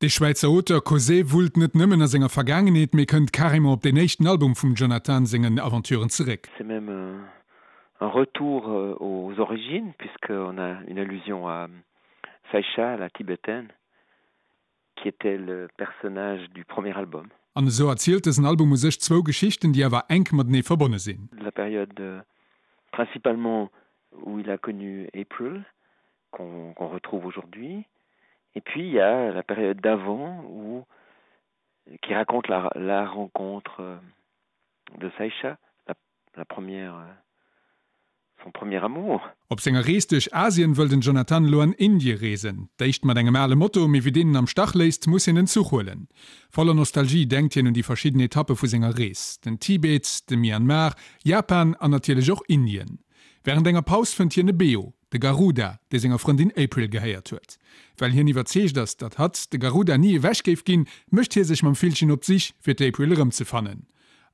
De Schwäizer Auteur Causet wullt net nëmmen a senger Vergaangenheet, mee kënnt carrément op deen éischten Album vum Jonathan sengen Aventuren zeréck. C'est même un retour aux origines puisqu'on a une allusion à Saïcha, la tibétaine, qui était le personnage du premier album. An esou erzielt dësen Album u sech zwou Geschichten, déi awer enk matenee verbonne sinn. La période principalement où il a connu April, qu'on qu'on retrouve aujourd'hui. Et puis il y a la période d'avant où qui raconte la, la rencontre euh, de Saïcha, la, la première euh, son premier amour. Op senger Rees duerch Asien wëll den Jonathan elo an Indie reesen. D'éischt mat engem ale Moto, mee wéi deen en am Stach léisst, muss hien en Zuch huelen. Voller Nostalgie denkt hien un déi verschidden Etappe vu senger Rees, den Tibet, de Myanmar, Japan an natierlech och Indien. Wärend enger Paus fënnt hien e Beo, de Garuda, dee senger Frëndin April gehéiert huet. Well hien iwwerzeegt ass, datt hatt de Garuda ni ewech géif ginn, mécht hie sech mam Villchen op d'Sich, fir d'April erëmzefannen.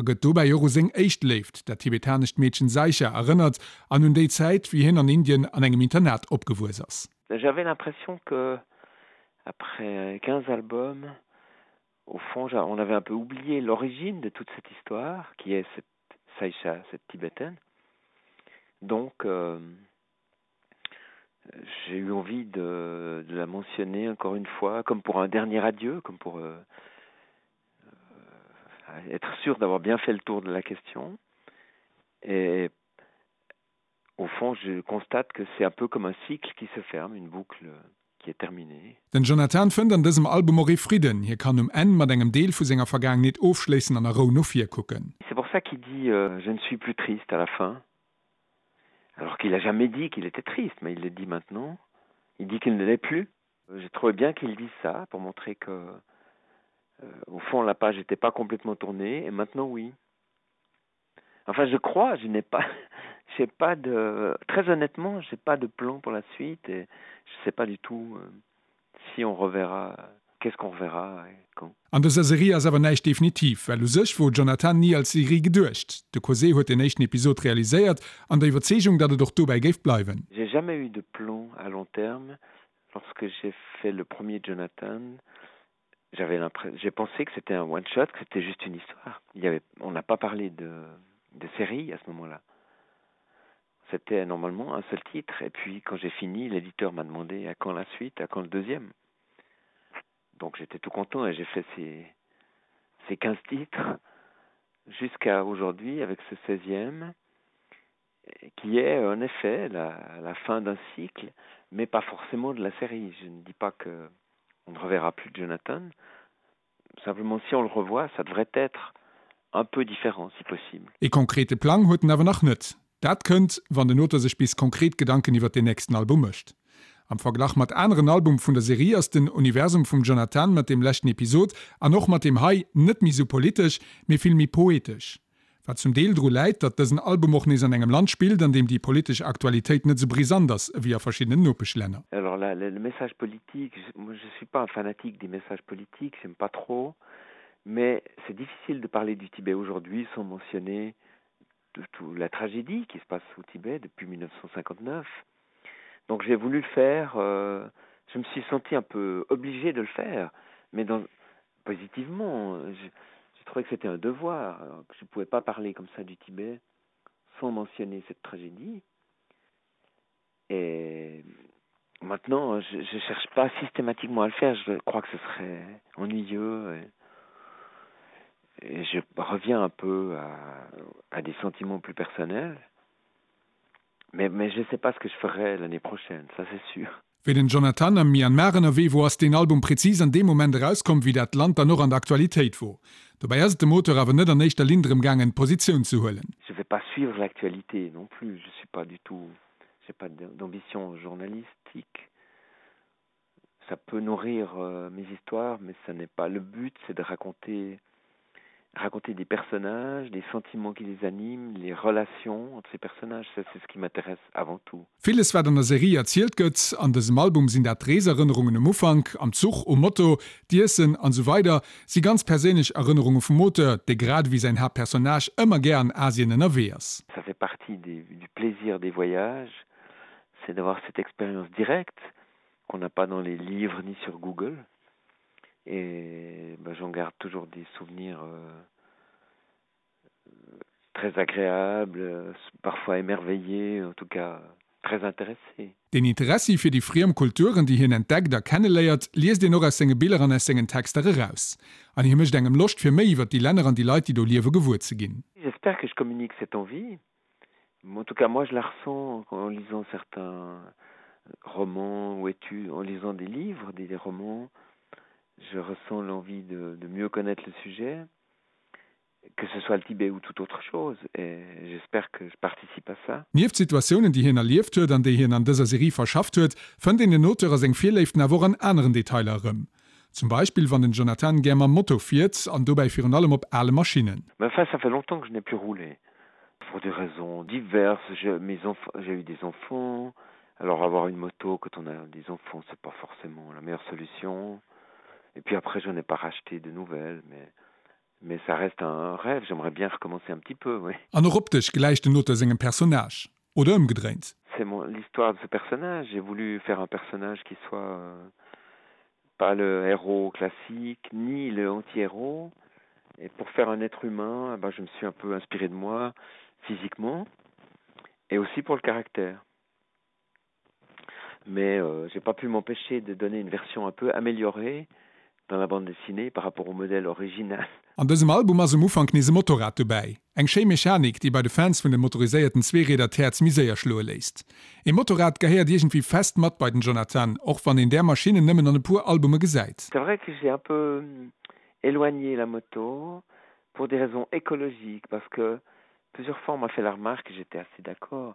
A gëtt dobäi och u seng éischt Léift, dat tibetanescht Meedchen Saisha, erënnert an un déi Zäit, wéi hien an Indien an engem Internat opgewuess ass. J'avais l'impression que après 15 albums, au fond on avait un peu oublié l'origine de toute cette histoire qui est cette Saïcha, cette tibétaine. Donc euh, j'ai eu envie de, de la mentionner encore une fois comme pour un dernier adieu, comme pour euh, euh, être sûr d'avoir bien fait le tour de la question. Et au fond, je constate que c'est un peu comme un cycle qui se ferme, une boucle qui est terminée. Den Jonathan fënnt an dësem Album och ee Fridden, hie kann um Enn mat engem Deel vu senger Vergaangenheet ofschléissen an a Rou no vir kucken. C'est pour ça qu'il dit euh, je ne suis plus triste à la fin alors qu'il a jamais dit qu'il était triste mais il le dit maintenant il dit qu'il ne l'est plus j'ai trouvé bien qu'il dise ça pour montrer que euh, au fond la page n'était pas complètement tournée et maintenant oui Enfin je crois, je n'ai pas j'ai pas de très honnêtement, j'ai pas de plan pour la suite et je sais pas du tout euh, si on reverra qu'est-ce qu'on reverra et quand. An dëser Serie ass awer näischt definitiv, well u sech wor Jonathan ni als Serie geduecht. De Cosé huet den éischten Episod realiséiert an der Iwwerzeegung, datt et och dobäi géif bleiwen. J'ai jamais eu de plan à long terme. Lorsque j'ai fait le premier Jonathan, j'avais l'impression j'ai pensé que c'était un one shot que c'était juste une histoire il y avait on n'a pas parlé de de série à ce moment là c'était normalement un seul titre et puis quand j'ai fini l'éditeur m'a demandé à quand la suite à quand le deuxième donc j'étais tout content et j'ai fait ces ces 15 titres jusqu'à aujourd'hui avec ce 16e qui est en effet la, la fin d'un cycle mais pas forcément de la série je ne dis pas que on ne reverra plus Jonathan. Simplement si on le revoit, ça devrait être un peu différent si possible. E konkrete Plang huet en awer nach net. Dat kënnt, wann den Auteur sech bis konkret Gedanken iwwert deen nächsten Album mécht. Am Verglach mat aneren Album vun der Serie ass den Universum vum Jonathan mat deem leschten Episod an och mat deem hei net méi sou politesch, mee vill méi poetesch. Wat zum Deel dru läit, datt dësen Album och nees an engem Land spillt, an deem déi politesch Aktualitéit net sou brisant ass ewéi a verschiddenen Nopeschlänner. Alors là, le message politique, moi je suis pas un fanatique des messages politiques, j'aime pas trop, mais c'est difficile de parler du Tibet aujourd'hui sans mentionner de tout la tragédie qui se passe au Tibet depuis 1959. Donc j'ai voulu le faire, euh, je me suis senti un peu obligé de le faire, mais dans, positivement, je, j'ai trouvé que c'était un devoir, que je ne pouvais pas parler comme ça du Tibet sans mentionner cette tragédie. Et maintenant, je ne cherche pas systématiquement à le faire, je crois que ce serait ennuyeux. Et, et je reviens un peu à, à des sentiments plus personnels. Mais, mais je ne sais pas ce que je ferai l'année prochaine, ça c'est sûr. Wéi den Jonathan am Myanmar ënnerwee wor, ass deen Album präzis an deem Moment erauskomm, wéi dat Land dann och an der Aktualitéit wor. Dobäi ass et dem Auteur awer net an éischter Linn drëm gaangen, Positioun ze huelen. Je vais pas suivre l'actualité non plus, je suis pas du tout, j'ai pas d'ambition journalistique. Ça peut nourrir euh, mes histoires, mais ça n'est pas le but, c'est de raconter raconter des personnages, des sentiments qui les animent, les relations entre ces personnages, ça c'est ce qui m'intéresse avant tout. Villes wat an der Serie erzielt gëtt an dësem Album sinn dat d'Reeserënnerungen um Ufank, am Zuch, um Moto, d'Iessen an esou weider si ganz perséinlech Erënnerunge vum Auteur, dee grad ewéi säin Haaptpersonnage ëmmer gär an Asien ënnerwee ass. Ça fait partie des, du plaisir des voyages, c'est d'avoir cette expérience directe qu'on n'a pas dans les livres ni sur Google. Et ben, j'en garde toujours des souvenirs euh, très agréables, parfois émerveillés, en tout cas très intéressés. Den Interessi fir déi friem Kulturen, déi hien entdeckt a kenneléiert, liest een och aus senge Biller an aus sengen Texter eraus. An hie mécht engem Loscht fir méi iwwer déi Länner an déi Leit, déi do liewe gewuer ze ginn. J'espère que je communique cette envie. En tout cas, moi, je la ressens en lisant certains romans ou études, en lisant des livres, des, des romans. Je ressens l'envie de, de mieux connaître le sujet que ce soit le Tibet ou toute autre chose et j'espère que je participe à ça. Nieft Situatiounen, déi hien erlieft huet an déi hien an dëser Serie verschafft huet, fënnt een den Auteur a seng Virléiften awer och an aneren Detailer erëm. Zum Beispill wann den Jonathan gär mam Moto fiert an dobäi virun allem op ale Maschinnen. Mais enfin, ça fait longtemps que je n'ai plus roulé. Pour des raisons diverses, j'ai mes enfants, j'ai eu des enfants, alors avoir une moto quand on a des enfants, c'est pas forcément la meilleure solution. Et puis après, je n'ai pas racheté de nouvelles, mais Mais ça reste un rêve, j'aimerais bien recommencer un petit peu, oui. An och optesch gläicht den Auteur sengem Personnage, oder ëmgedréint? C'est mon l'histoire de ce personnage, j'ai voulu faire un personnage qui soit euh, pas le héros classique ni le anti-héros. Et pour faire un être humain, eh ben, je me suis un peu inspiré de moi physiquement et aussi pour le caractère. Mais euh, j'ai pas pu m'empêcher de donner une version un peu améliorée dans la bande dessinée par rapport au modèle original. An dësem Album ass um Ufank nees e Motorrad dobäi. Eng schéi Mechanik, déi bei de Fans vun de motoriséierten Zweerieder d'Häerz méi séier schloe léisst. E Motorrad gehéiert iergendwéi fest mat bei den Jonathan, och wann een där Maschinnen nëmmen an e puer Albume gesäit. C'est vrai que j'ai un peu éloigné la moto pour des raisons écologiques parce que plusieurs fois on m'a fait la remarque, j'étais assez d'accord,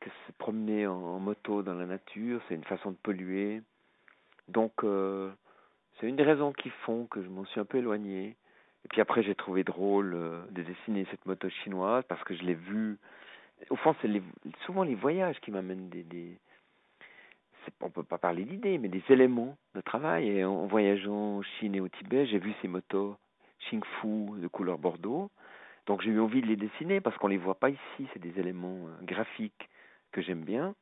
que se promener en, en moto dans la nature, c'est une façon de polluer. Donc euh, c'est une des raisons qui font que je m'en suis un peu éloigné. Et puis après j'ai trouvé drôle euh, de dessiner cette moto chinoise parce que je l'ai vue. Au fond, c'est les, souvent les voyages qui m'amènent des, des on peut pas parler d'idées, mais des éléments de travail. Et en, en voyageant en Chine et au Tibet, j'ai vu ces motos Xingfu de couleur bordeaux. Donc j'ai eu envie de les dessiner parce qu'on les voit pas ici, c'est des éléments euh, graphiques que j'aime bien.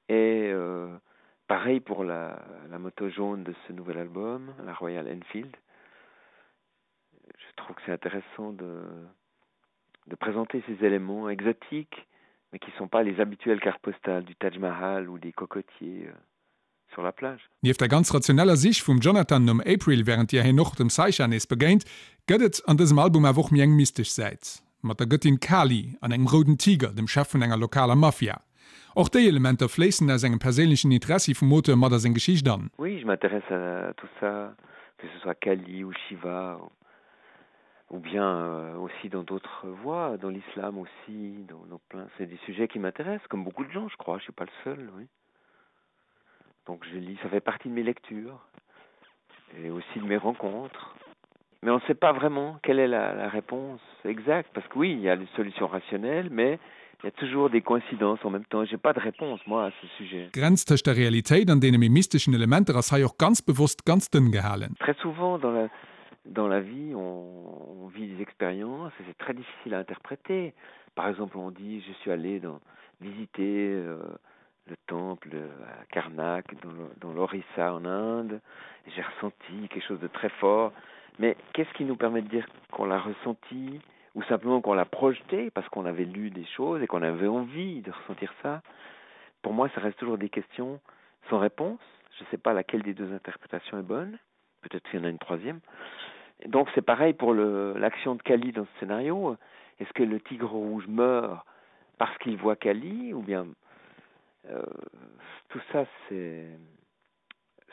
Et euh, pareil pour la, la moto jaune de ce nouvel album, la Royal Enfield. Je trouve que c'est intéressant de, de présenter ces éléments exotiques, mais qui ne sont pas les habituelles cartes postales du Taj Mahal ou des cocotiers euh, sur la plage. Nieft der ganz rationeller Sich vum Jonathan nom April, wärend deeër hien och dem Saisha nees begéint, gëtt et an dësem Album awer och méi eng mystesch Säit. Mat der Gëttin Kali an engem rouden Tiger, dem Chef vun enger lokaler Mafia. Och déi Elementer fléissen aus engem perséinlechen Interessi vum Auteur mat a seng Geschicht an. Oui, je m'intéresse à tout ça, que ce soit Kali ou Shiva ou bien euh, aussi dans d'autres voies, dans l'islam aussi, dans, dans plein. C'est des sujets qui m'intéressent, comme beaucoup de gens, je crois, je suis pas le seul, oui. Donc je lis, ça fait partie de mes lectures et aussi de mes rencontres. Mais on ne sait pas vraiment quelle est la, la réponse exacte parce que oui, il y a des solutions rationnelles, mais il y a toujours des coïncidences en même temps. J'ai pas de réponse moi à ce sujet. D'Grenz tëscht der Realitéit an deene méi mysteschen Elementer ass hei och ganz bewosst ganz dënn gehalen. Très souvent dans la, dans la vie, on, on vit des expériences et c'est très difficile à interpréter. Par exemple, on dit je suis allé dans, visiter euh, le temple à Karnak dans l'Orissa en Inde, j'ai ressenti quelque chose de très fort. Mais qu'est-ce qui nous permet de dire qu'on l'a ressenti ou simplement qu'on l'a projeté parce qu'on avait lu des choses et qu'on avait envie de ressentir ça Pour moi, ça reste toujours des questions sans réponse. Je ne sais pas laquelle des deux interprétations est bonne. Peut-être qu'il y en a une troisième. Donc c'est pareil pour l'action de Kali dans ce scénario. Est-ce que le tigre rouge meurt parce qu'il voit Kali ou bien euh, tout ça c'est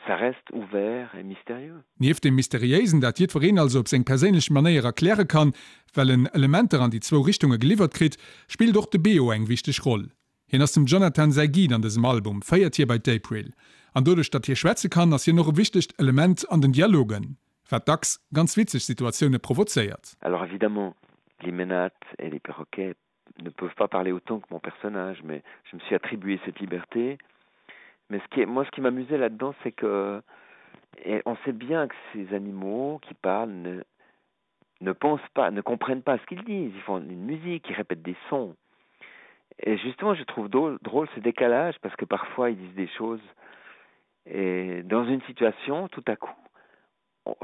ça reste ouvert et mystérieux. Nieft dem Mysteriéisen, dat jiddwereen also op seng perséinlech Manéier erkläre kann, well en Elementer an déi zwou Richtunge geliwwert kritt, spillt och de Beo eng wichteg Roll. Hien ass dem Jonathan säi Guide an dësem Album, féiert hie bei d'April. An doduerch datt hie schwätze kann, ass hien och e wichtegt Element an den Dialogen, wat dacks ganz witzeg Situatioune provozéiert. Alors évidemment, les menates et les perroquets ne peuvent pas parler autant que mon personnage, mais je me suis attribué cette liberté. Mais ce qui est, moi, ce qui m'amusait là-dedans, c'est que et on sait bien que ces animaux qui parlent ne, ne pensent pas, ne comprennent pas ce qu'ils disent. Ils font une musique, ils répètent des sons. Et justement, je trouve drôle, drôle ce décalage parce que parfois ils disent des choses et dans une situation, tout à coup,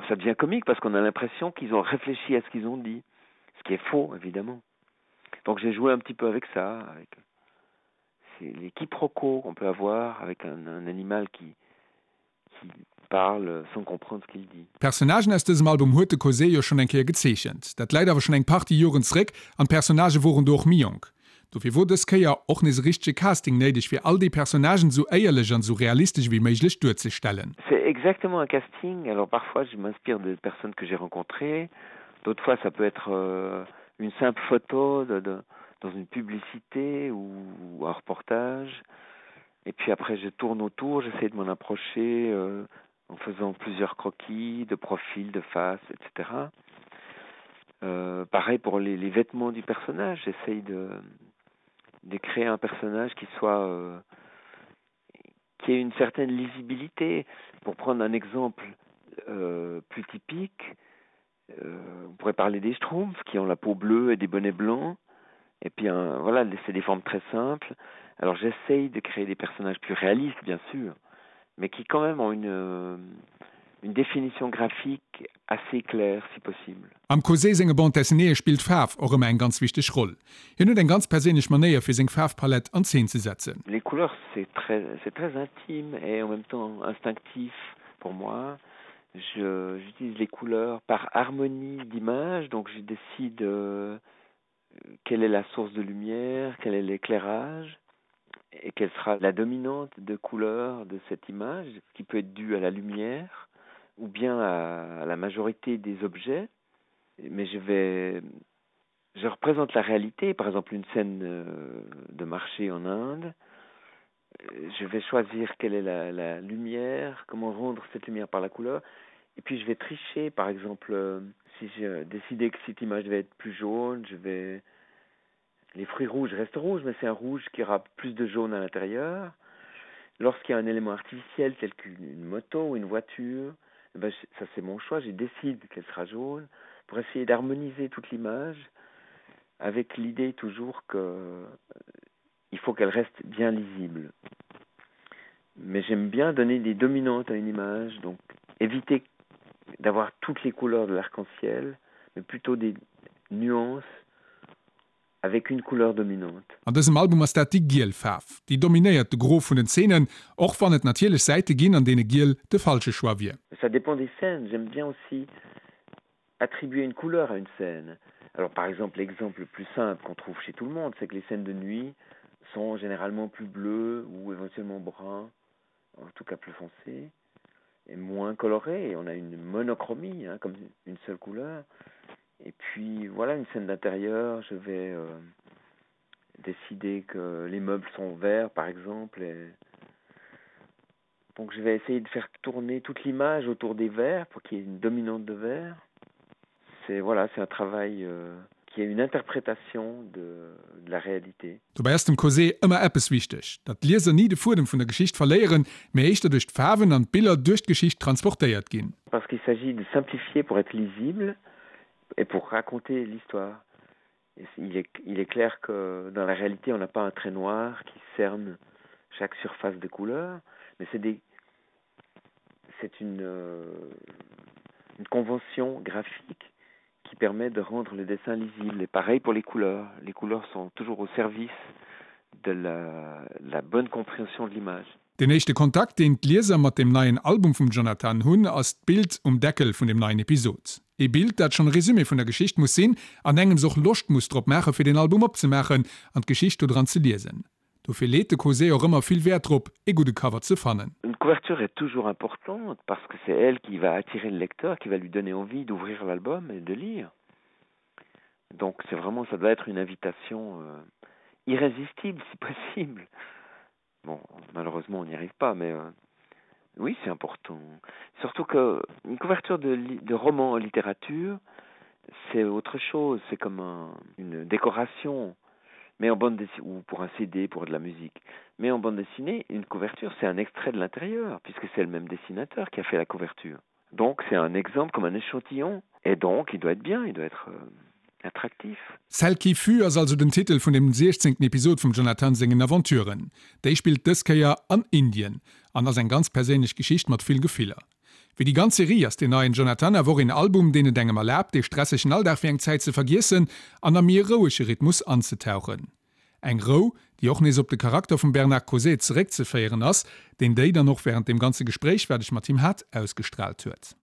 Ça devient comique parce qu'on a l'impression qu'ils ont réfléchi à ce qu'ils ont dit, ce qui est faux évidemment. Donc j'ai joué un petit peu avec ça, avec les quiproquos qu'on peut avoir avec un, un animal qui, qui parle sans comprendre ce qu'il dit. D'Personnagen aus dësem Album huet de Cosé jo schonn eng Kéier gezeechent. Dat läit awer schonn eng Partie Joren zréck an d'Personnagë woren do och méi jonk. Dofir wor dës Kéier och nees e richtege Casting néideg fir all déi Personnagen esou éierlech an esou realistesch ewéi méiglech duerzestellen. C'est exactement un casting, alors parfois je m'inspire de personnes que j'ai rencontrées, d'autres fois ça peut être une simple photo de de dans une publicité ou un reportage et puis après je tourne autour, j'essaie de m'en approcher en faisant plusieurs croquis de profil, de face, etc. Euh, pareil pour les, les vêtements du personnage, j'essaye de, de créer un personnage qui soit euh, qui ait une certaine lisibilité. Pour prendre un exemple euh, plus typique, euh, on pourrait parler des schtroumpfs qui ont la peau bleue et des bonnets blancs. Et puis un, voilà, c'est des formes très simples. Alors j'essaye de créer des personnages plus réalistes, bien sûr, mais qui quand même ont une, euh, une définition graphique assez claire si possible. Am Cosé senge Bande dessinéeë spillt d'Faarf och ëmmer eng ganz wichteg Roll. Hien huet eng ganz perséinlech Manéier fir seng Faarfpalett an Zeen ze setzen. Les couleurs c'est très c'est très intime et en même temps instinctif pour moi. Je j'utilise les couleurs par harmonie d'image donc je décide quelle est la source de lumière, quel est l'éclairage et quelle sera la dominante de couleur de cette image qui peut être due à la lumière ou bien à, à la majorité des objets mais je vais je représente la réalité par exemple une scène euh, de marché en Inde je vais choisir quelle est la, la lumière comment rendre cette lumière par la couleur et puis je vais tricher par exemple euh, si je décidais que cette image devait être plus jaune je vais les fruits rouges restent rouges mais c'est un rouge qui aura plus de jaune à l'intérieur lorsqu'il y a un élément artificiel tel qu'une moto ou une voiture eh ben ça c'est mon choix je décide qu'elle sera jaune pour essayer d'harmoniser toute l'image avec l'idée toujours que euh, il faut qu'elle reste bien lisible mais j'aime bien donner des dominantes à une image donc éviter d'avoir toutes les couleurs de l'arc-en-ciel mais plutôt des nuances avec une couleur dominante. An dësem Album ass dat déi giel Faarf, déi dominéiert de Gros vun den Zeenen, och wann et natierlech Säite ginn, an deene giel de falsche Choix wier. Ça dépend des scènes, j'aime bien aussi attribuer une couleur à une scène. Alors par exemple, l'exemple le plus simple qu'on trouve chez tout le monde, c'est que les scènes de nuit sont généralement plus bleues ou éventuellement brun, en tout cas plus foncé et moins coloré. On a une monochromie, hein, comme une seule couleur. Et puis voilà une scène d'intérieur, je vais euh, décider que les meubles sont verts par exemple et donc je vais essayer de faire tourner toute l'image autour des verts pour qu'il y ait une dominante de verre. C'est voilà, c'est un travail euh, qui est une interprétation de, de la réalité. Dobäi ass dem Cosé ëmmer eppes wichteg, datt d'Lieser ni de Fuedem vun der Geschicht verléieren, mee éischter duerch d'Faarwen an d'Biller duerch d'Geschicht transportéiert ginn. Parce qu'il s'agit de simplifier pour être lisible et pour raconter l'histoire. Il est, il est clair que dans la réalité, on n'a pas un trait noir qui cerne chaque surface de couleur, mais c'est des c'est une, euh, une convention graphique qui permet de rendre le dessin lisible et pareil pour les couleurs les couleurs sont toujours au service de la, la bonne compréhension de l'image. Den éischte Kontakt, deen d'Lieser mat dem neien Album vum Jonathan hunn, ass d'Bild um Deckel vun dem neien Episod. Ee Bild, dat schonn e Resumé vun der Geschicht muss sinn an engems och Loscht muss drop maache fir den Album opzemaachen an d'Geschicht do dran ze liesen. Dofir leet de Cosé och ëmmer vill Wäert drop, ee gudde Cover ze fannen. Une couverture est toujours importante parce que c'est elle qui va attirer le lecteur, qui va lui donner envie d'ouvrir l'album et de lire. Donc c'est vraiment ça doit être une invitation euh, irrésistible si possible. Bon, malheureusement on n'y arrive pas mais euh, oui, c'est important. Surtout que une couverture de, de roman en littérature, c'est autre chose, c'est comme un, une décoration mais en bande dessinée ou pour un CD pour de la musique. Mais en bande dessinée, une couverture, c'est un extrait de l'intérieur puisque c'est le même dessinateur qui a fait la couverture. Donc c'est un exemple comme un échantillon et donc il doit être bien, il doit être euh, attractif. Celle qui fut ass also den Titel vun dem 16. Episod vum Jonathan sengen Aventuren. Déi spillt dës Kéier an Indien an ass eng ganz perséinlech Geschicht mat vill Gefiller. Wéi déi ganz Serie ass deen neien Jonathan awer och een Album, deen et engem erlaabt, dee stressegen Alldag fir eng Zäit ze vergiessen an a méi e rouege Rhythmus anzetauchen. Eng Rou, déi och nees op de Charakter vum Bernard Causet zeréckzeféieren ass, deen déi dann och wärend deem ganze Gespréich, wat ech mat him hat, ausgestraalt huet.